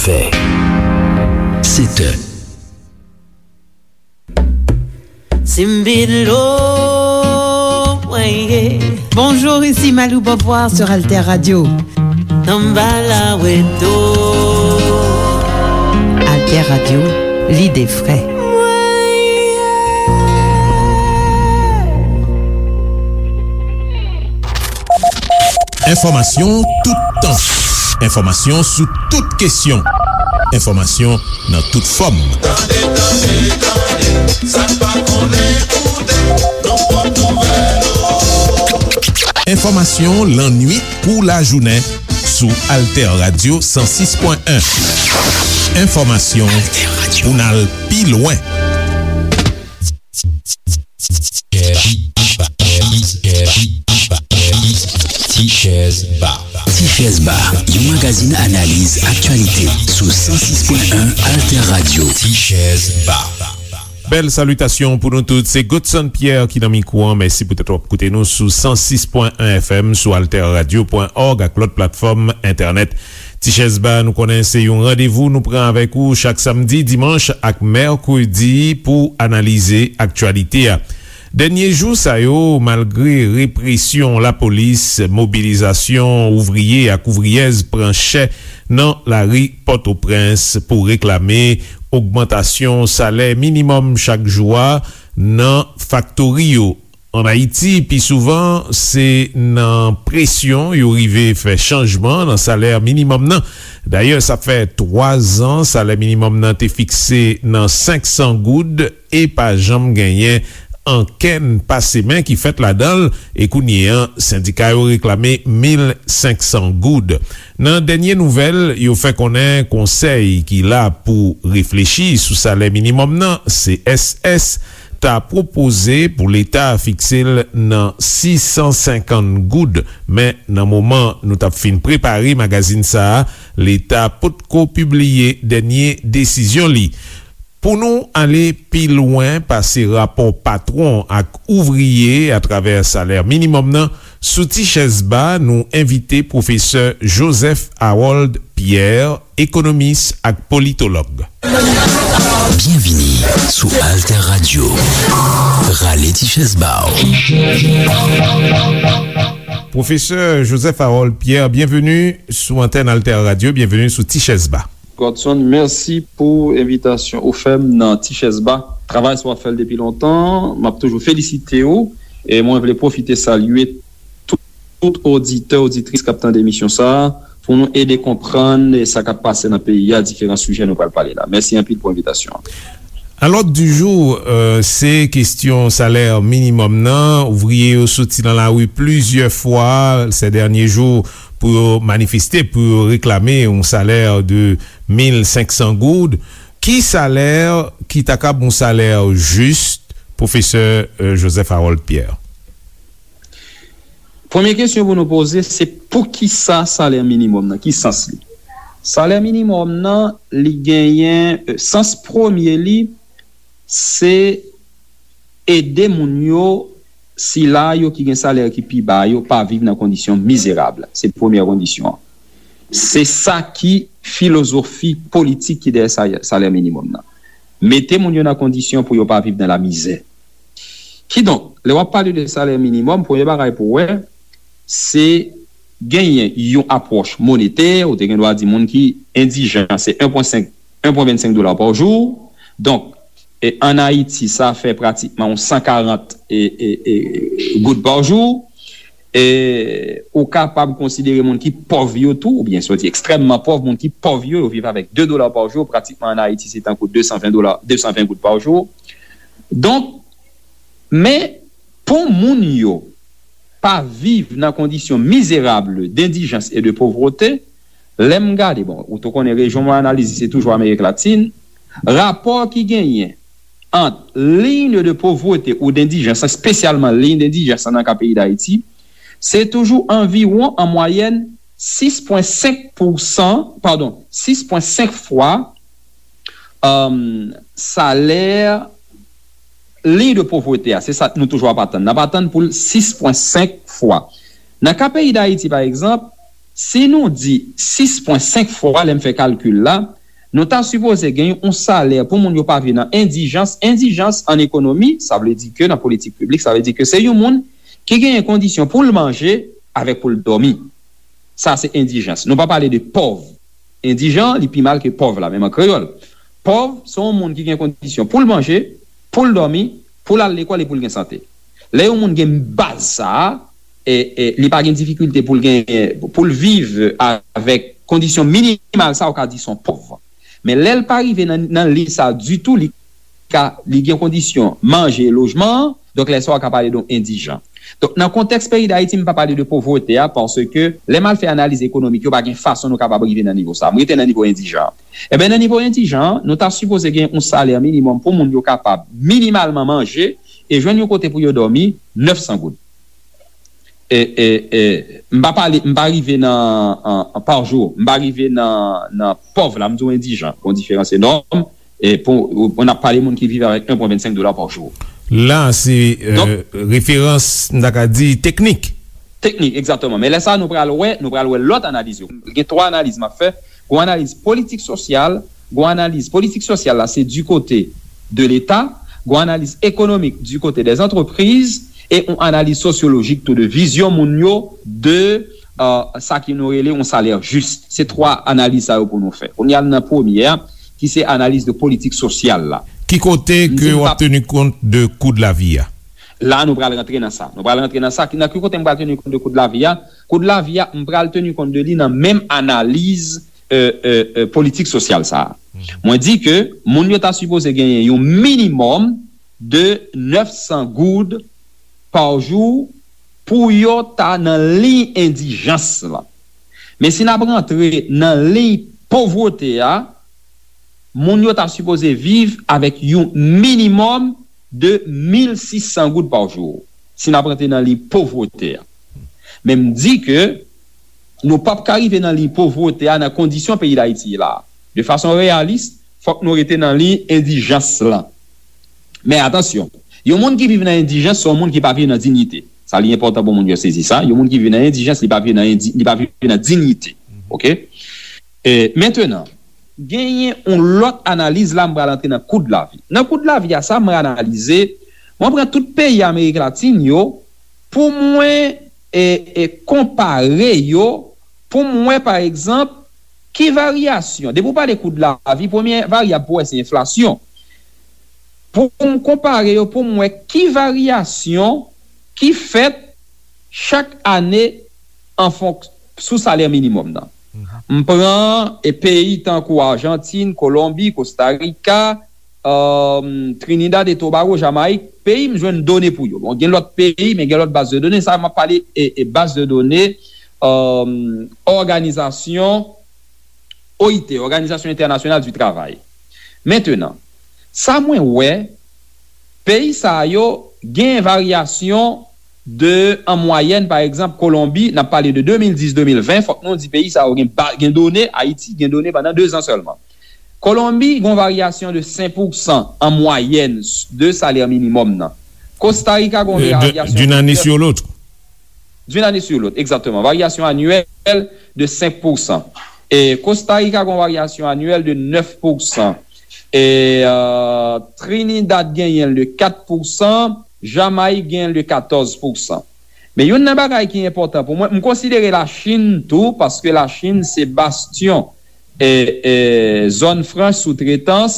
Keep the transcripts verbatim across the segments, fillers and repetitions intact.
Sèt è. Simbilo, mwen ye. Bonjour, ici Malou Beauvoir sur Alter Radio. Tanbala weto. Alter Radio, lide fre. Mwen ye. Enfòmasyon toutan. Enfòmasyon sou tout kesyon. Enfòmasyon nan tout fòm. Tande, tande, tande, sa n pa konnen koute, nou pot nouvèl yo. Enfòmasyon lannwit kou lajounen sou Alter Radio san sis pwen en. Enfòmasyon pou n al pi lwen. Tichèz Ba. Tichèz Ba, yon magazin analiz aktyalite sou san sis pwen en Alter Radio. Tichèz Ba. Bèl salitasyon pou nou tout. Se Godson Pierre ki nan mikwo an. Mèsi poutèt w ap koute nou sou san sis pwen en F M, sou alter radio pwen òg ak lòt platfòm entènèt. Tichèz Ba, nou konnen se yon randevou nou pran avèk ou chak samdi, dimanch ak mèkredi pou analize aktyalite a. Dènye jou sa yo, malgre represyon lapolis, mobilizasyon ouvriye ak ouvriyèz pran chè nan lari Pòtoprens pou reklame ogmantasyon salè minimòm chak jou a nan faktori yo. Ann Ayiti, pi souvan, se nan presyon yo rive fè chanjman nan salè minimòm nan. Dayè, sa fè twa zan salè minimòm nan te fikse nan senk san goud e pa janm genyen ankenn pase men ki fèt ladan l, e kounye an, sendika yo reklame mil senk san goud. Nan dènye nouvèl, yo fè konnen konsèy ki la pou reflechi sou salè minimòm nan, C S S, ta pwopoze pou Leta fikse l nan sis san senkant goud, men nan moman nou t ap fin prepare magazin sa a, Leta potko pibliye dènye desizyon li. Pou nou ale pi lwen pase rapò patwon ak ouvriye atravè salè minimòm nan, sou Tichèz Ba, nou envite pwofesè Joseph Harold Pierre, ekonomis ak politològ. Byenvini sou Alter Radio. Rale ti chèz ba w. Pwofesè Joseph Harold Pierre, byenveni sou antèn Alter Radio, byenveni sou Ti Chèz Ba. Godson, mèsi pou envitasyon ou fè m nan Ti Chèz Ba. Travay sa w ap fè l depi lontan, m ap toujou felisite w. E mwen vle pwofite salye tout, tout oditè, oditris k ap tande emisyon sa a, pou nou ede konprann sa k ap pase nan peyi a, diferan sijè nou pral pale la. Mèsi anpil pou envitasyon an. A l'ordre du jour, euh, se kesyon salè minimòm nan. Ouvriye yo soti nan lari plizyè fwa se dènye jou pou yo manifeste, pou yo reklame yon salè de mil senk san goud. Ki salè ki ta kab yon salè jis, pwofesè, euh, Joseph Harold Pierre? Premye kesyon pou nou poze, se poukisa salè minimòm nan? Ki sans li? Salè minimòm nan, li genyen, euh, sans premye li, se ede moun yo, sila yo ki gen salè ki pi ba yo, pa viv nan kondisyon mizerab. Se premyè kondisyon an. Se sa ki filozofi politik ki dèyè sa-, salè minimòm nan. Mete moun yo nan kondisyon pou yo pa viv nan lamizè. Kidonk, lè w ap pale de salè minimòm, premye bagay pou w wè, se genyen yon apwòch monetè, ou te gen dwa di moun ki endijan, se en pwen senk, en pwen vennsenk dola pa jou. Donk, e, ann Ayiti, sa fè pratikman yon san karant, e, e, e, goud pa jou. E ou kapab konsidere moun ki pòv yo tou, oubyen soti ekstrèmman pòv, moun ki pòv yo, yo viv avèk de dola pa jou, pratikman ann Ayiti, se tankou de san ven dola, de san ven goud pa jou. Donk, men, pou moun yo pa viv nan kondisyon mizerab, dendijans e de povrete, lè m gade, bon, ou tou konnen rejyon mwen analize, se toujou Amerik Latin, rapò ki genyen ant liy de povrete ou dendijans, espesyalman liy dendijans nan ka peyi Dayiti, se toujou anviwon, an mwayèn, sis pwen senk pousan, padon, sis pwen senk fwa, um, salè liy de povrete a. Se sa nou toujou ap atann. N ap atann pou l sis pwen senk fwa. Nan ka peyi Dayiti, pa egzanp, si nou di sis pwen senk fwa, lè m fè kalkil la, Nou ta sipoze gen yon salè pou moun yo pa viv nan endijans. Endijans an ekonomi, sa vle di ke nan politik piblik, sa vle di ke se yon moun ki genyen kondisyon pou l manje avèk pou l dòmi. Sa se endijans. Nou pa pale de pòv. Endijan, li pi mal ke pòv la, menm an kreyòl. Pòv, se yon moun ki gen kondisyon pou l manje, pou l dòmi, pou l al lekòl e pou l gen sante. Lè yon moun gen baz sa a, e, e, li pa gen difikilte pou l gen, pou l viv avèk kondisyon minimal sa, ou ka di se yon pòv. Men lè l pa rive nan, nan liy sa ditou, li ka, li gen kondisyon manje e lojman an, donk lè sa a ou ka pale de yon endijan. Donk, nan kontèks peyi Dayiti, m pa pale de povrete a, paske lè m al fè analiz ekonomik, yo pa gen fason nou kapab rive nan nivo sa. M rete nan nivo endijan. Enben, nan nivo endijan, nou ta sipoze gen yon salè minimòm pou moun yo kapab minimalman manje e jwenn yon kote pou yo dòmi, nèf san goud. E, e, e, m pa pale, m pa rive nan, an, an, pa jou, m pa rive nan, nan pòv la, m di w endijan, gon diferans enòm, e pou, pou n ap pale moun ki viv avèk en pwen vennsenk dola pa jou. La, se, euh, referans, m ta ka di, teknik. Teknik, egzakteman. Men lè sa, nou pral wè, nou pral wè lòt analiz yo. Gen twa analiz m ap fè. Gon analiz politik sosyal, gon analiz politik sosyal la, se du côté de Leta, gon analiz ekonomik du côté des entreprises, e yon analiz sosyolojik tou de vizyon moun yo de, euh, sa ki nou rele yon salè jis. Se twa analiz sa yo pou nou fè. Kounye a nan premye a, ki se analiz de politik sosyal la. Ki kote ke w ap teni kont de kou de lavi a? La, nou pral rantre nan sa. Nou pral rantre nan sa. Ki, nan ki kote m pral teni kont de kou de lavi a? Kou de lavi a, m pral teni kont de li nan menm analiz, euh, euh, euh, politik sosyal sa a. Mwen di ke moun yo ta sipoze genyen yon minimòm de nèf san goud pa jou pou yo ta nan liy endijans la. Men si n ap rantre nan liy povrete a, moun yo ta sipoze viv avèk yon minimòm de mil sis san goud pa jou, si n ap rantre nan liy povrete a. Men m di ke nou p ap ka rive nan liy povrete a nan kondisyon peyi Dayiti ye la. De fason reyalis, fòk nou rete nan liy endijans lan. Men atansyon, yon moun ki viv nan endijans, se yon moun ki pa viv nan diyite. Sa li enpòtan pou moun yo sezi sa. Yon moun ki viv nan endijans, li pa viv nan endi-, li pa viv nan diyite. Oke? E, mentenan, genyen yon lòt analiz la, m pral antre nan kou de lavi. Nan kou de lavi a, sa m analize, mwen pran tout peyi Amerik Latin yo pou mwen, e, e, konpare yo, pou m wè, pa egzanp, ki varyasyon. Depi w pale kou de lavi, premye varyab pou wè se enflasyon. Pou m konpare yo, pou m wè ki varyasyon ki fèt chak ane an fonk-, sou salè minimòm nan. M pran, e, peyi tankou Ajantin, Kolonbi, Kosta Rika, um, Trinidad e Tobago, Jamayik, peyi m jwenn done pou yo. Bon, gen lòt peyi, men gen lòt baz de done. Sa, m ap pale, e, e baz de done, um, òganizasyon O I T, Òganizasyon Entènasyonal di Travay. Mentenan, sa mwen wè, peyi sa yo gen varyasyon de, an mwayèn, pa egzanp, Kolonbi, n ap pale de de mil dis, de mil ven, fòk nou di peyi sa yo gen ba-, gen done, Ayiti gen done pandan de zan sèlman. Kolonbi gen yon varyasyon de senk pousan an mwayèn de salè minimòm nan. Kosta Rika gen yon varyasyon d'une année sur l'autre. D'une année sur l'autre, exactement. Varyasyon anyèl de senk pousan. E Kosta Rika gen yon varyasyon anyèl de nèf pousan. E, euh, Trinidad genyen l de kat pousan, Jamayik genyen l de katòz pousan. Men youn nan bagay ki enpòtan pou mwen, m konsidere Lachin tou, paske Lachin se bastyon, e, e, zòn franch soutretans,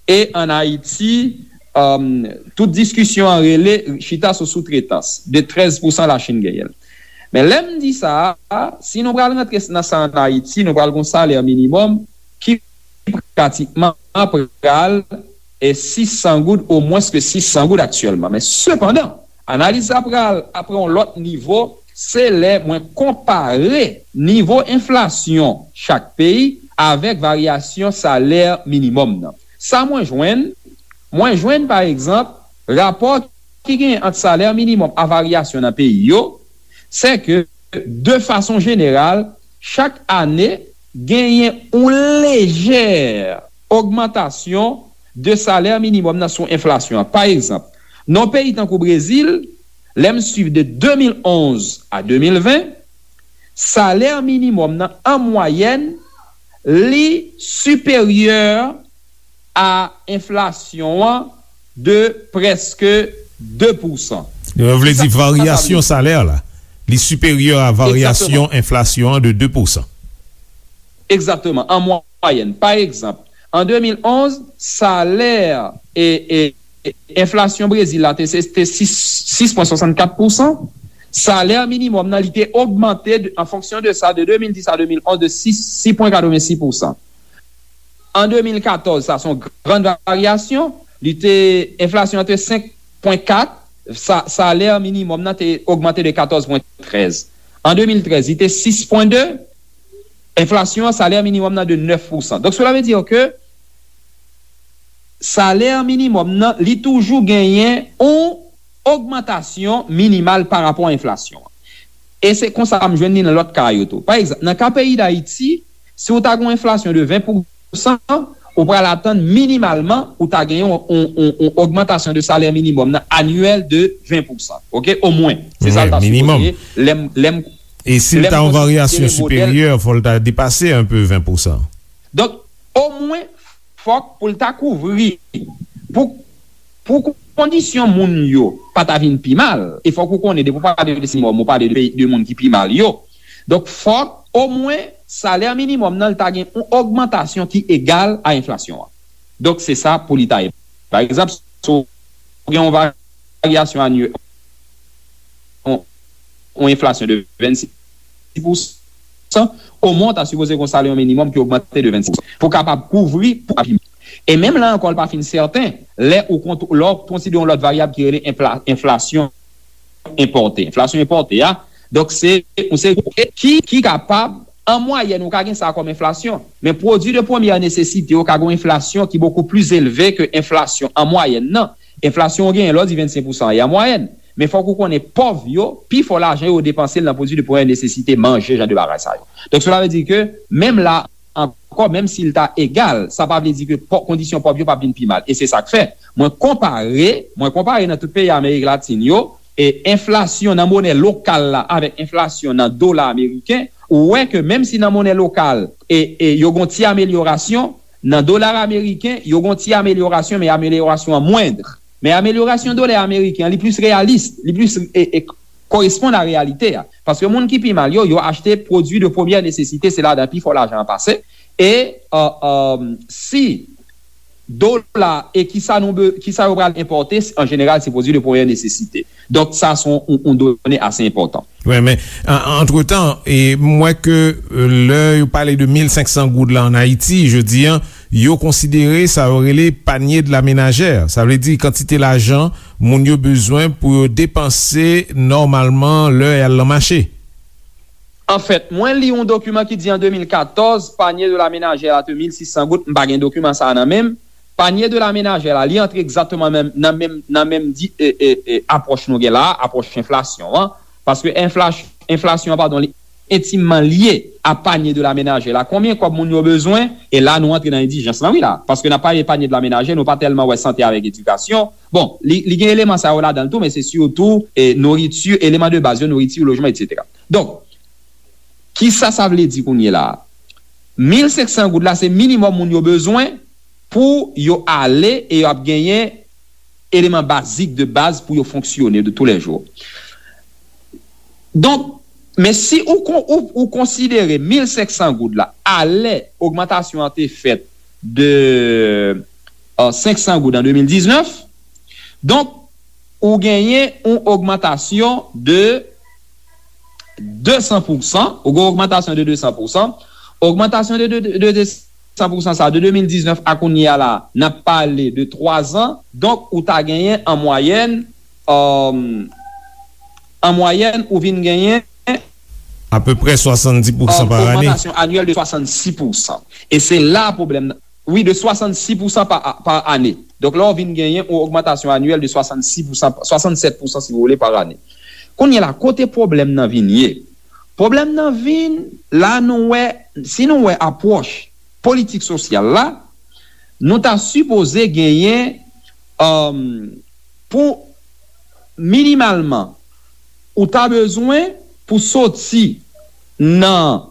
e ann Ayiti, um, tout diskisyon an rele chita sou soutretans, de trèz pousan Lachin genyen l. Men lè m di sa a, si nou pral rantre nan sa ann Ayiti, nou pral gon salè minimòm ki pratikman pral, e, sis san goud, o mwens ke sis san goud aktyèlman. Men sepandan, analiz la pral, ap pran yon lòt nivo, se lè mwen konpare nivo enflasyon chak peyi avèk varyasyon salè minimòm nan. Sa mwen jwenn, mwen jwenn, pa egzanp, rapò ki genyen ant salè minimòm a varyasyon nan peyi yo, se ke, de fason jeneral, chak ane, genyen yon lejè ogmantasyon de salè minimòm nan sou enflasyon an. Pa egzanp, nan yon peyi tankou Brezil, lè m swiv de de mil onz a de mil ven, salè minimòm nan, an mwayèn, li siperyè a enflasyon an de prèske de pousan. Sa, sa vle di sa, sa vle varyasyon di salè la, li siperyè a varyasyon enflasyon an de de pousan. Egzakteman, an mwayèn. Pa egzanp, an de mil onz, salè, e, e, e, enflasyon Brezil la te, se, te sis, sis pwen swasannkat pousan. Salè minimòm nan, li te ogmante de, an fonksyon de sa, de de mil dis a de mil onz, de sis, sis pwen katrevensis pousan. An de mil katòz, sa se yon gran varyasyon, li te, enflasyon an te senk pwen kat, sa, salè minimòm nan te ogmante de katòz pwen trèz. An de mil trèz, li te sis pwen de, enflasyon an, salè minimòm nan de nèf pousan. Donk, cela veut dire que salè minimòm nan, li toujou genyen yon ogmantasyon minimal pa rapò a enflasyon an. E se konsa m jwenn li nan lòt ka yo tou. Pa egzanp, nan ka peyi Dayiti, si w ta gen yon enflasyon de ven pousan, ou pral atann minimalman ou ta gen yon, yon, yon, yon ogmantasyon de salè minimòm nan anyèl de ven pousan. Oke? Omwen. Se sa l ta sipoze ye. Lè m, lè m, e si l ta yon varyasyon siperyè, fò l ta depase enpe ven pousan. Donk, omwen, fòk pou l ta kouvri, pou, pou kondisyon moun yo pa ta vin pi mal, e fòk ou konnen, depi w pale de minimòm, ou pale de, de moun ki pi mal yo. Donk, fòk, omwen, salè minimòm nan, l ta gen yon ogmantasyon ki egal a enflasyon an. Donk, se sa pou li ta ye. Pa egzanp, si w gen yon varyasyon anyè-, yon, yon enflasyon de vennsis pousan, omwen w ta sipoze gen yon salè minimòm ki ogmante de vennsis pousan pou kapab kouvri pou api. E menm la ankò, l pa fin sèten, lè ou kont-, lè w konsidere yon lòt varyab ki rele enfla-, enflasyon enpòte. Enflasyon enpòte a, donk, se yon seri ki, ki kapab, an mwayèn, ou ka gen sa kòm enflasyon, men pwodui de premyè nesesite yo ka gen yon enflasyon ki bokou plis elve ke enflasyon an mwayèn nan. Enflasyon ou genyen lè w di vennsenk pousan an mwayèn. Men fòk ou konnen pòv yo, pi fò lajan yo, yo depanse l nan pwodui de premyè nesesite, manje, jan de bagay sa yo. Donk, cela veut dire que, menm la ankò, menm si l ta egal, sa pa vle di ke pò-, kondisyon pòv yo p ap vin pi mal. E se sa k fè, mwen konpare, mwen konpare nan tout peyi Amerik Latin yo, e enflasyon nan monè lokal la avèk enflasyon nan dola ameriken, ou wè ke menm si nan monè lokal, e, e yo gon ti amelyorasyon, nan dola ameriken, yo gon ti amelyorasyon, men amelyorasyon an mwend. Men amelyorasyon dola ameriken an, li plis reyalis, li plis, e, e, koresponn a reyalite a. Paske moun ki pi mal yo, yo achte pwodui de premyè nesesite, se ladan pi fò lajan an pase. E, e, e, si dola e kisa nou be-, kisa yo pral enpòte, an jeneral, se pwodui de premyè nesesite. Donk, sa se yon, yon, yon done ase enpòtan. Wi, men, an, antretan, e, m wè ke, e, lè yo pale de mil senk san goud la an Ayiti, jodi a, yo konsidere sa yo rele panier de la ménagère. Sa vle di kantite lajan moun yo bezwen pou yo depanse nòmalman lè y al nan mache. Anfèt, mwen li yon dokiman ki di an de mil katòz, panier de la ménagère la te mil sis san goud, m pa gen dokiman sa a nan men m. Panier de la ménagère la, li antre egzakteman nan, nan menm, nan menm di, e, e, e, apwòch nou gen la a, apwòch enflasyon an. Paske enfla-, enflasyon an, padon, li entimman lye a panier de la ménagère la. Konbyen kòb moun yo bezwen? E la, nou antre nan endijans lan, wi, la. Paske n ap pale panier de la ménagère, nou pa tèlman wè sante avèk edikasyon. Bon, li, li gen eleman sa yo ladan l tou, men se sitou, e, nouriti, eleman de baz yo, nouriti, lojman, etsetera. Donk, kisa sa vle di kounye la a? Mil senk san goud la, se minimòm moun yo bezwen pou yo ale e yo ap genyen eleman bazik de baz pou yo fonksyone de tou lè jou. Donk, men si ou kon-, ou, ou konsidere mil senk san goud la, alè ogmantasyon an te fèt de, e, senk san goud an de mil diznèf, donk, ou genyen yon ogmantasyon de de san pousan, ou gen yon ogmantasyon de de san pousan. Ogmantasyon de, de, de, de de san pousan sa, de de mil diznèf a kounye a la, n ap pale de twa zan. Donk, ou ta genyen an mwayèn, e, an mwayèn, ou vin genyen apeprè swasanndis pousan, e, pa ane. Ogmantasyon anyèl de swasannsis pousan. E se la pwoblèm nan. Wi, de swasannsis pousan pa, pa ane. Donk, la, w vin genyen yon ogmantasyon anyèl de swasannsis pousan, swasannsèt pousan, si w vle, pa ane. Kounye a la, kote pwoblèm nan vin ye? Pwoblèm nan vin, la nou wè, si nou wè apwòch politik sosyal la, nou ta sipoze genyen, e, pou minimalman, ou ta bezwen pou soti nan,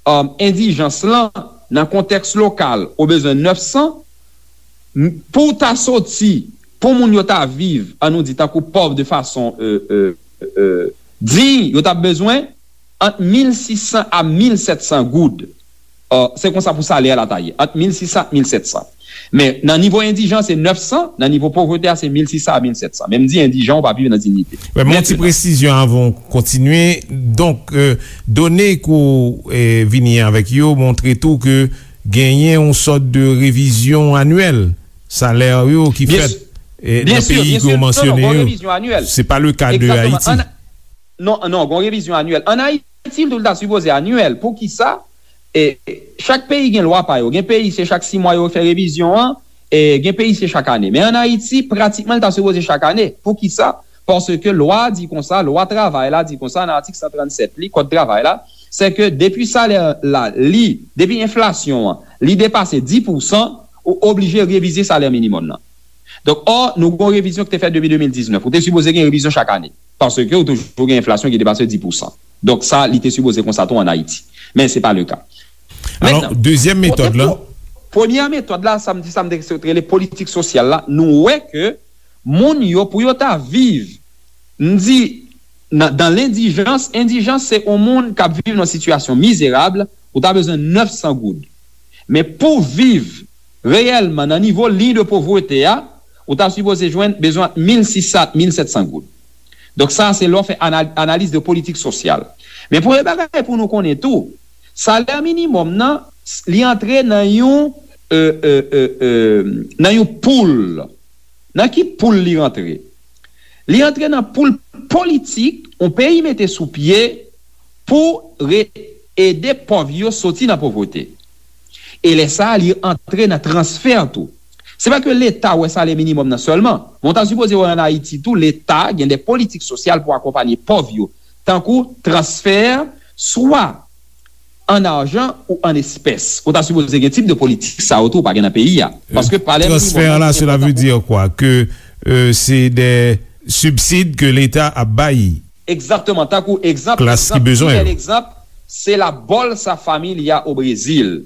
e, endijans lan, nan kontèks lokal, ou bezwen nèf san, m- pou w ta soti, pou moun yo ta viv, an nou di, tankou pòv de fason euh, euh, euh, diy, yo t ap bezwen ant mil sis san a mil sèt san goud. Ò, se konsa pou salè a la ta ye, ant mil sis san ak mil sèt san. Men, nan nivo endijan, se nèf san, nan nivo povrete a, se mil sis san a mil sèt san. Men m di endijan, ou pa viv nan diyite. Wè, men yon ti presizyon avan w kontinye. Donk, euh, done ke w euh, vini avèk yo montre tou ke genyen yon sòt de revizyon anyèl salè yo ki fèt euh, nan peyi ke w mansyone yo. Se pa le ka de Ayiti. Non, non, gen yon revizyon anyèl. Ann Ayiti, l tou l ta sipoze anyèl. Poukisa? E, chak peyi gen lwa pa yo. Gen peyi, se chak sis mwa yo fè revizyon an, e gen peyi, se chak ane. Men ann Ayiti, pratikman, l ta sipoze chak ane. Poukisa? Paske lwa a di konsa, lwa travay la di konsa, nan atik san trannsèt li, kòd travay la, se ke depi salè la, li, depi enflasyon an, li depase dis pousan, ou oblije revize salè minimòm nan. Donk, ò, nou gen yon revizyon ki te fèt depi de mil diznèf. Ou te sipoze gen revizyon chak ane. Paske ou toujou gen enflasyon ki depase dis pousan. Donk, sa, li te sipoze konsa tou ann Ayiti. Men se pa le ka. Alò, dezyèm metòd la. Premyè metòd la, sa m di, sa m te rele politik sosyal la, nou wè ke moun yo, pou yo ta viv, m di, nan, dan lendijans, endijans se yon moun k ap viv nan sitiyasyon mizerab, ou ta bezwen nèf san goud. Men pou viv reyèlman nan nivo liy de povrete a, ou ta sipoze jwenn bezwen mil sis san, mil sèt san goud. Donk sa, se lè w fè anal- analiz de politik sosyal. Men premye bagay pou nou konnen tou, salè minimòm nan, li antre nan yon, euh, euh, euh, euh, nan yon poul. Nan ki poul li rantre? Li antre nan poul politik yon peyi mete sou pye pou re- ede pòv yo soti nan povrete. E lè sa a, li antre nan transfè tou. Se pa ke Leta wè salè minimòm nan sèlman, men w ta sipoze wè ann Ayiti tou, Leta gen de politik sosyal pou akonpanye pòv yo, tankou transfè, swa an ajan ou an espès. Ou ta sipoze gen tip de politik sa yo tou, ou pa gen nan peyi a. Paske salè minimòm nan, li enpòtan pou... Transfè la, cela veut dire quoi? Que euh, c'est des subsides que l'État ap bay. Egzakteman, tankou egzanp, klas ki egzanp, bezwen pi bèl yo. Egzanp, se la Bolsa Família o Brezil.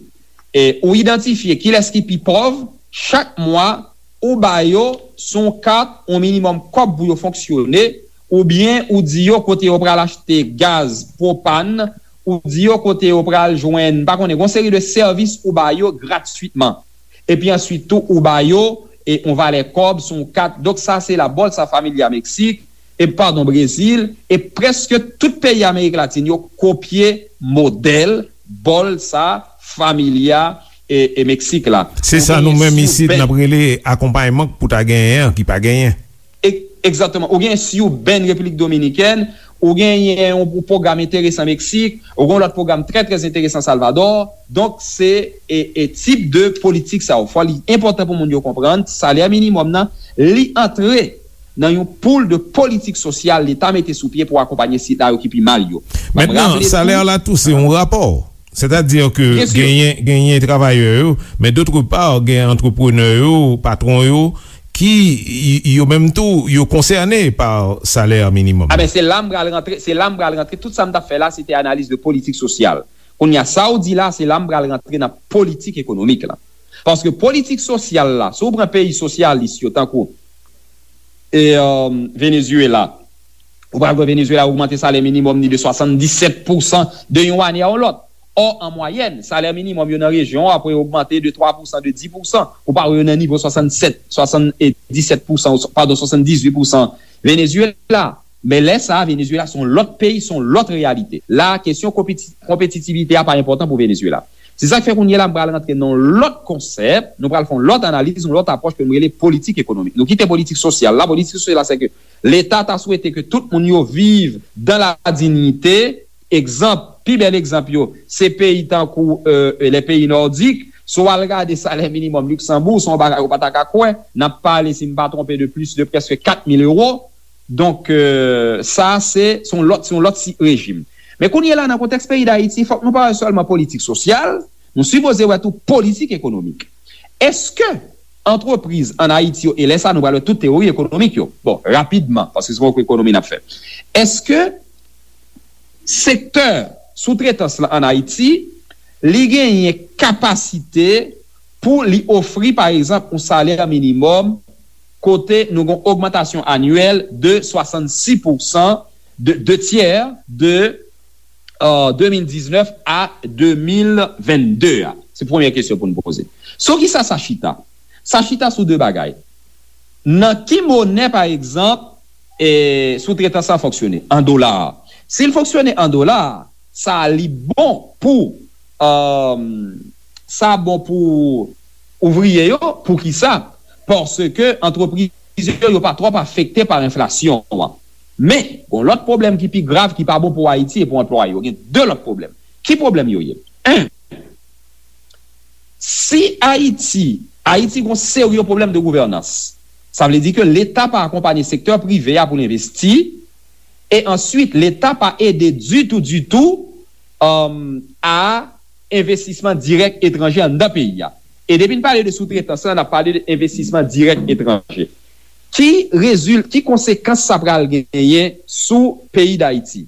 E ou idantifye kilès ki pi pòv, chak mwa, ou ba yo sou yon kat yon minimòm kòb pou yo fonksyone, oubyen ou di yo kote yo pral achte gaz, pwopàn, ou di yo kote yo pral jwenn, m pa konnen, gon seri de sèvis ou ba yo gratwitman. Epi answit tou, ou ba yo e yon valè kòb sou yon kat. Donk sa se la Bolsa Familia Meksik, e padon, Brezil, e prèske tout peyi Amerik Latin yo kopye modèl Bolsa Familia e, e Meksik la. Se sa nou menm isit n ap rele akonpayman pou ta genyen an ki pa genyen. Egzakteman. Ou gen Siben, Repiblik Dominikèn, ou genyen yon pwogram enteresan Meksik, ou gen yon lòt pwogram trè, trè enteresan Salvadò. Donk, se e, e tip de politik sa yo. Fò li enpòtan pou moun yo konprann, salè minimòm nan, li antre nan yon poul de politik sosyal Leta mete sou pye pou akonpanye sila yo ki pi mal yo. Mentnan, salè la tou se yon rapò. Sètadi ke genyen, genyen travayè yo, men dòt pa, gen antreprenè yo, patwon yo, ki y- yo menm tou, yo konsène pa salè minimòm. A ben, se la m pral rantre, se la m pral rantre. Tout sa m t ap fè la, se te analiz de politik sosyal. Kounye a, sa w di la, se la m pral rantre nan politik ekonomik la. Paske politik sosyal la, si w pran peyi sosyalis yo, tankou e, euh, Venezuela, ou pral wè Venezuela ogmante salè minimòm ni de swasanndisèt pousan de yon ane a yon lòt. Ò, an mwayèn, salè minimòm yo nan rejyon an ap ogmante de twa pousan, de dis pousan. Ou pa wè yo nan nivo swasannsèt, swasanndisèt pousan, padon, swasanndizuit pousan Venezuela. Men lè sa a, Venezuela se yon lòt peyi, se yon lòt reyalite. La a, kesyon konpeti- konpetitivite a pa enpòtan pou Venezuela. Se sa k fè kounye a la, m pral rantre nan yon lòt konsèp, nou pral fè yon lòt analiz, yon lòt apwòch ke m rele politik ekonomik. Nou kite politik sosyal la. Politik sosyal la, se ke Leta ta swete ke tout moun yo viv dans la dignité. Egzanp, pi bèl egzanp yo, se peyi tankou euh, les pays nordiques. Si w al gade salè minimòm Liksanboug, se yon bagay ou pa ta ka kwè. N ap pale, si m pa twonpe, de plis de prèske kat mil ewo. Donk, euh, sa se, se yon lòt, se yon lòt si- rejim. Men kounye a la, nan kontèks peyi Dayiti, fòk nou pa wè sèlman politik sosyal, nou sipoze wè tou politik ekonomik. Èske antrepriz ann Ayiti yo, e lè sa a nou pral wè tout teyori ekonomik yo, bon, rapidman, paske se poko ekonomi n ap fè. Èske sektè soutretans lan ann Ayiti li genyen kapasite pou li ofri, pa egzanp, yon salè minimòm kote nou gen yon ogmantasyon anyèl de swasannsis pousan, de, de tyè de, euh, de mil diznèf a de mil vennde a? Se premye kesyon pou n poze. Sou ki sa sa chita? Sa chita sou de bagay. Nan ki monè, pa egzanp, e, soutretans lan fonksyone? An dola. Si l fonksyone an dola, sa li bon pou, euh, sa bon pou ouvriye yo. Poukisa? Paske antrepriz yo, yo pa twòp afekte pa enflasyon an. Men, gon lòt pwoblèm ki pi grav, ki pa bon pou Ayiti e pou anplwaye yo. Gen de lòt pwoblèm. Ki pwoblèm yo ye? En, si Ayiti, Ayiti gon serye pwoblèm de gouvènans. Sa vle di ke Leta pa akonpanye sektè prive a pou l envesti, e answit, Leta pa ede ditou, ditou, um, a envestisman dirèk etranje anndan peyi a. E depi n pale de soutretans lan, n ap pale de envestisman dirèk etranje. Ki rezil-, ki konsekans sa pral genyen sou peyi Dayiti?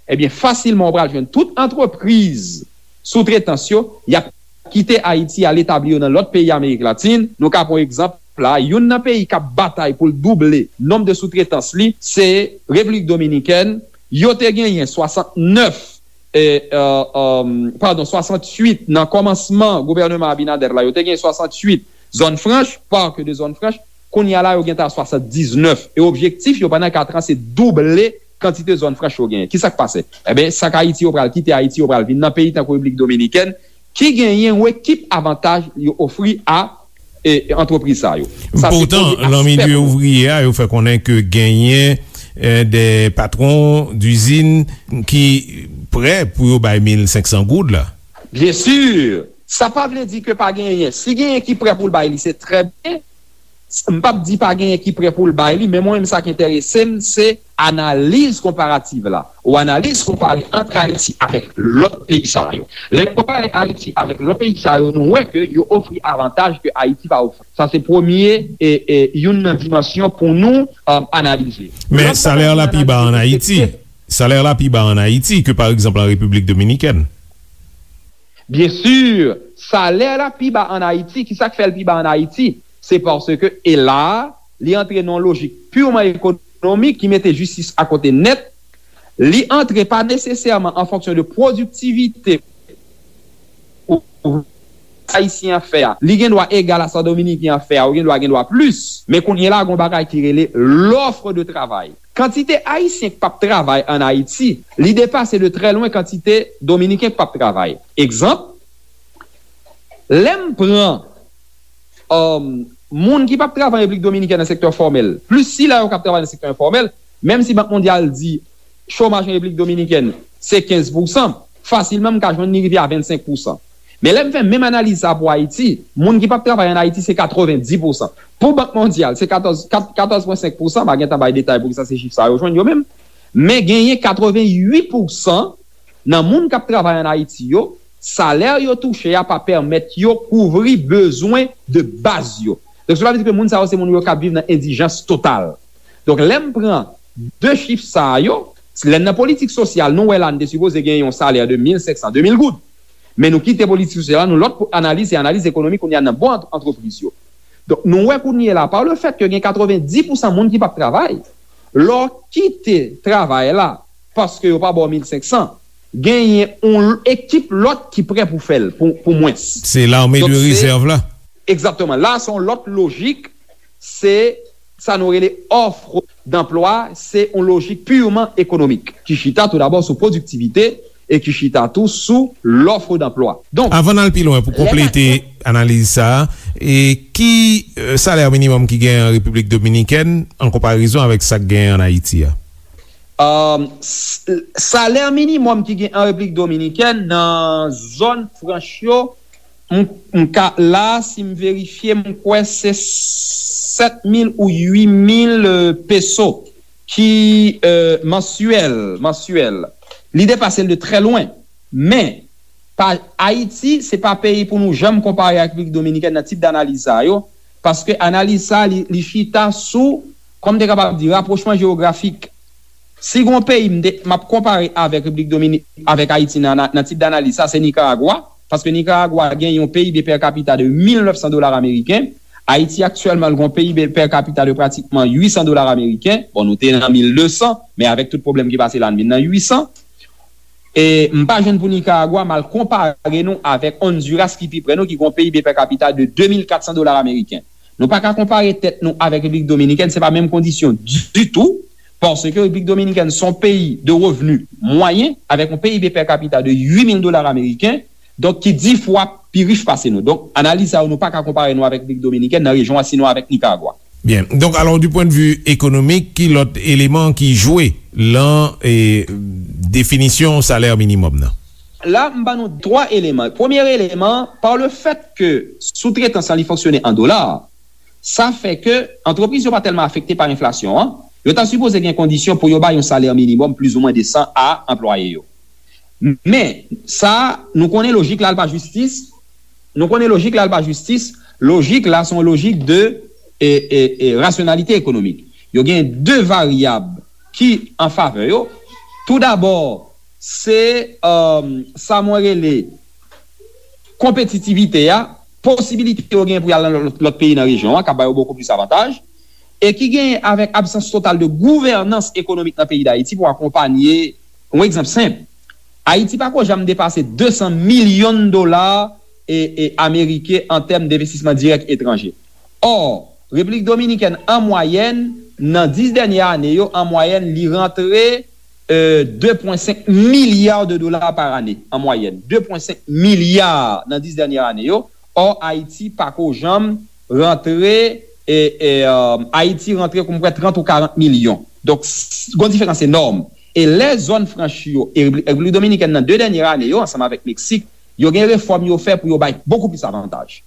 Ebyen, fasilman, ou pral jwenn tout antrepriz soutretans yo, y ap kite Ayiti, al etabli yo nan lòt peyi Amerik Latin. Nou ka pran egzanp la, youn nan peyi k ap batay pou l double nonb de soutretans li, se Repiblik Dominikèn. Yo te genyen swasantnèf, e, e, e, padon, swasanntuit nan kòmansman gouvèneman Abinader la, yo te genyen swasanntuit zòn franch, parc de zone franche. Kounye a la, yo gentan a swasanndiznèf. E objektif yo pandan kat an, se double kantite zòn franch yo genyen. Kisa k pase? Ebyen, sa k Ayiti yo pral kite Ayiti, yo pral vin nan peyi tankou Repiblik Dominikèn, ki genyen yon ekip avantaj yo ofri a, e, antrepriz sa yo. Sa se premye aspè pou nou. Poutan, nan milye ouvriye a, yo fè konnen ke genyen, e, de patwon dizin ki prè pou yo bay mil senk san goud la. Byen si, sa pa vle di ke pa genyen. Si genyen ki prè pou l bay li, se trè byen. M p ap di pa genyen ki prè pou l bay li, men mwen menm sa k enterese m, se analiz konparativ la. Ou analiz konpare ant Ayiti avèk lòt peyi sa yo. Lè n konpare Ayiti avèk lòt peyi sa yo, nou wè ke yo ofri avantaj ke Ayiti pa ofri. Sa se premye, e, e, youn nan dimansyon pou nou, um, analize. Men lòt bagay pou n analize, se ke salè la pi ba an Ayiti. Salè la pi ba an Ayiti ke, pa egzanp, an Repiblik Dominikèn. Byen si, salè la pi ba an Ayiti. Kisa k fè l pi ba an Ayiti? Se paske, e la, li antre nan yon lojik piman ekonomik ki mete jistis akote nèt. Li antre pa nesesèman an fonksyon de pwodiktivite ou ayisyen an fè a. Li gen dwa egal a sa dominiken an fè a, ou gen dwa gen dwa plis. Men kounye a la, gon bagay ki rele l'offre de travail. Kantite ayisyen k p ap travay an Ayiti, li depase de trè lwen kantite dominiken k p ap travay. Egzanp, lè m pran, um, moun ki p ap travay an Repiblik Dominikèn nan sektè fòmèl, plis sila yo k ap travay nan sektè enfòmèl, menm si Bank Mondyal di chomaj an Repiblik Dominikèn se kenz pousan, fasilman m ka jwenn li rive a vennsenk pousan. Men lè m fè menm analiz sa pou Ayiti, moun ki p ap travay an Ayiti se katrevenndis pousan. Pou Bank Mondyal, se katòz, kat-, katòz pwen senk pousan, m a gentan bay detay poukisa se chif sa yo jwenn yo menm. Men genyen katrevennuit pousan nan moun k ap travay an Ayiti yo, salè yo touche a pa pèmèt yo kouvri bezwen de baz yo. Donk, sa vle di ke moun sa yo se moun yo k ap viv nan endijans total. Donk, lè m pran de chif sa yo, lè n nan politik sosyal, nou wè la n te sipoze gen yon salè de mil senk san, de mil goud. Men nou kite politik sosyal la, nou lòt analiz, se analiz ekonomik kounye a nan bon ant-, antrepriz yo. Donk, nou wè kounye a la, pa le fèt ke gen katrevenndis pousan moun ki p ap travay, lè w kite travay la, paske yo pa ba w mil senk san, genyen yon ekip lòt ki prè pou fè l, pou, pou mwens. Se lame de rezèv la. Egzakteman. La, se yon lòt lojik, se sa nou rele offre d'emploi, se yon lojik piman ekonomik, ki chita tou dabò sou pwodiktivite e ki chita tou sou l'offre d'emploi. Donk, avan n al pi lwen, pou konplete analiz sa a, e ki, e, salè minimòm ki gen an Repiblik Dominikèn an konparezon avèk sa k gen an Ayiti a? Um, s-, salè minimòm ki gen an Repiblik Dominikèn nan zòn franch yo, m, m ka, la, si m verifye, m kwè se sèt mil ou uit mil, e, peso ki, e, mansyèl, mansyèl. Li depase l de trè lwen. Men, pa, Ayiti, se pa peyi pou nou janm konpare ak Repiblik Dominikèn nan tip danaliz sa yo, paske analiz sa, li, li chita sou, kòm m te kapab di, rapwochman jewografik. Si gon peyi m te, m ap konpare avèk Repiblik Domini-, avèk Ayiti nan, nan, nan tip danaliz sa, se Nikaragwa. paske Nikaragwa gen yon P I B per capita de mil nèf san dola ameriken, Ayiti aktyèlman l gen yon P I B per capita de pratikman uit san dola ameriken. Bon, nou te nan mil de san, men avèk tout pwoblèm ki pase la, n vin nan uit san. E m pa jwenn pou Nikaragwa, m al konpare nou avèk Honduras ki pi prè nou, ki gen yon P I B per capita de de mil kat san dola ameriken. Nou pa ka konpare tèt nou avèk Repiblik Dominikèn, se pa menm kondisyon ditou, paske Repiblik Dominikèn se yon peyi de revni mwayen, avèk yon P I B per capita de uit mil dola ameriken, donk ki dis fwa pi rich pase nou. Donk, analiz sa yo, nou pa ka konpare nou avèk Repiblik Dominikèn nan rejyon an, sinon avèk Nikaragwa. Byen. Donk, alò, du pwen de vi ekonomik, ki lòt eleman ki jwe lan e, definisyon salè minimòm nan? La, m ban nou twa eleman. Premye eleman, pa le fèt ke soutretans lan li fonksyone an dola, sa fè ke antrepriz yo pa tèlman afekte pa enflasyon an. Yo ta sipoze gen kondisyon pou yo bay yon salè minimòm plizoumwen desan a anplwaye yo. Men, sa, nou konnen lojik la, l pa jistis. Nou konnen lojik la, l pa jistis. Lojik la, se yon lojik de e, e, e, rasyonalite ekonomik. Yo gen de varyab ki an favè yo. Toudabò, se, um, sa mwen rele konpetitivite a, posibilite yo gen pou y al nan lòt, lòt peyi nan rejyon an, k ap ba yo bokou plis avantaj, e ki genyen avèk absans total de gouvènans ekonomik nan peyi Dayiti pou akonpanye, yon egzanp senp, Ayiti pa ko janm depase de san milyon dola e, e, ameriken an tèm denvestisman dirèk etranje. Ò, Repiblik Dominikèn, an mwayèn, nan dis dènye ane yo, an mwayèn, li rantre, e, de pwen senk milya de dola pa ane, an mwayèn. De pwen senk milya nan dis dènye ane yo. Ò, Ayiti pa ko janm rantre, e, e, e, Ayiti rantre, kòm kwè, trant ou karant milyon. Donk, s-, gon diferans enòm. E lè zòn franch yo, e Repiblik Dominikèn nan de dènye ane yo, ansanm avèk Meksik, yo gen refòm yo fè pou yo bay bokou plis avantaj.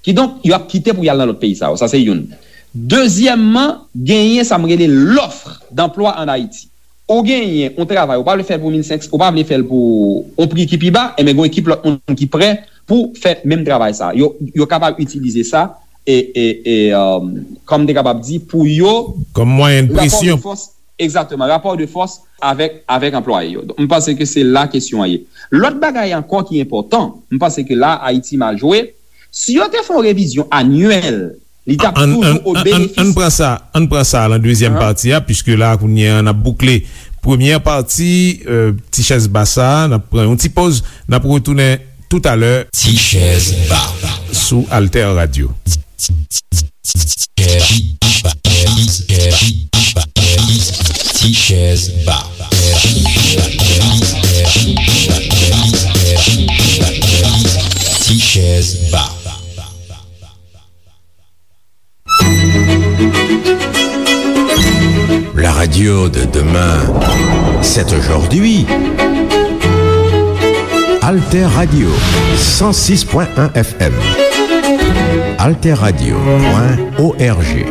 Kidonk, yo ap kite pou y al nan lòt peyi sa yo. Sa se youn. Dezyèmman, genyen sa m rele l'offre d'emploi en Haïti. Ou genyen yon travay, ou pa vle fè l pou mil senk san, ou pa vle fè l pou yon pri ki pi ba, enben, gen yon ekip lòt moun ki prè pou fè menm travay sa. Yo, yo kapab itilize sa e, e, e, um, kòm m te kapab di, pou yo kòm mwayen de presyon. Rapò de fòs, egzakteman, rapò de fòs avèk, avèk anplwaye yo. Donk, m panse ke se la kesyon an ye. Lòt bagay ankò ki enpòtan, m panse ke la Ayiti mal jwe, si yo te fè yon revizyon anyèl, li t ap toujou o benefis. Ann pran sa, ann pran sa lan dezyèm pati a, piske la, kounye a, n ap boukle premyè pati, e, Ti Chèz Ba sa, n ap pran yon ti poz, n ap retounen toutalè. Ti Chèz Ba sou Alter Radio. Ti Chèz Ba. Ti Chèz Ba. La radio de demain, c'est aujourd'hui. Alter Radio, cent six point un F M. Alter Radio point O R G.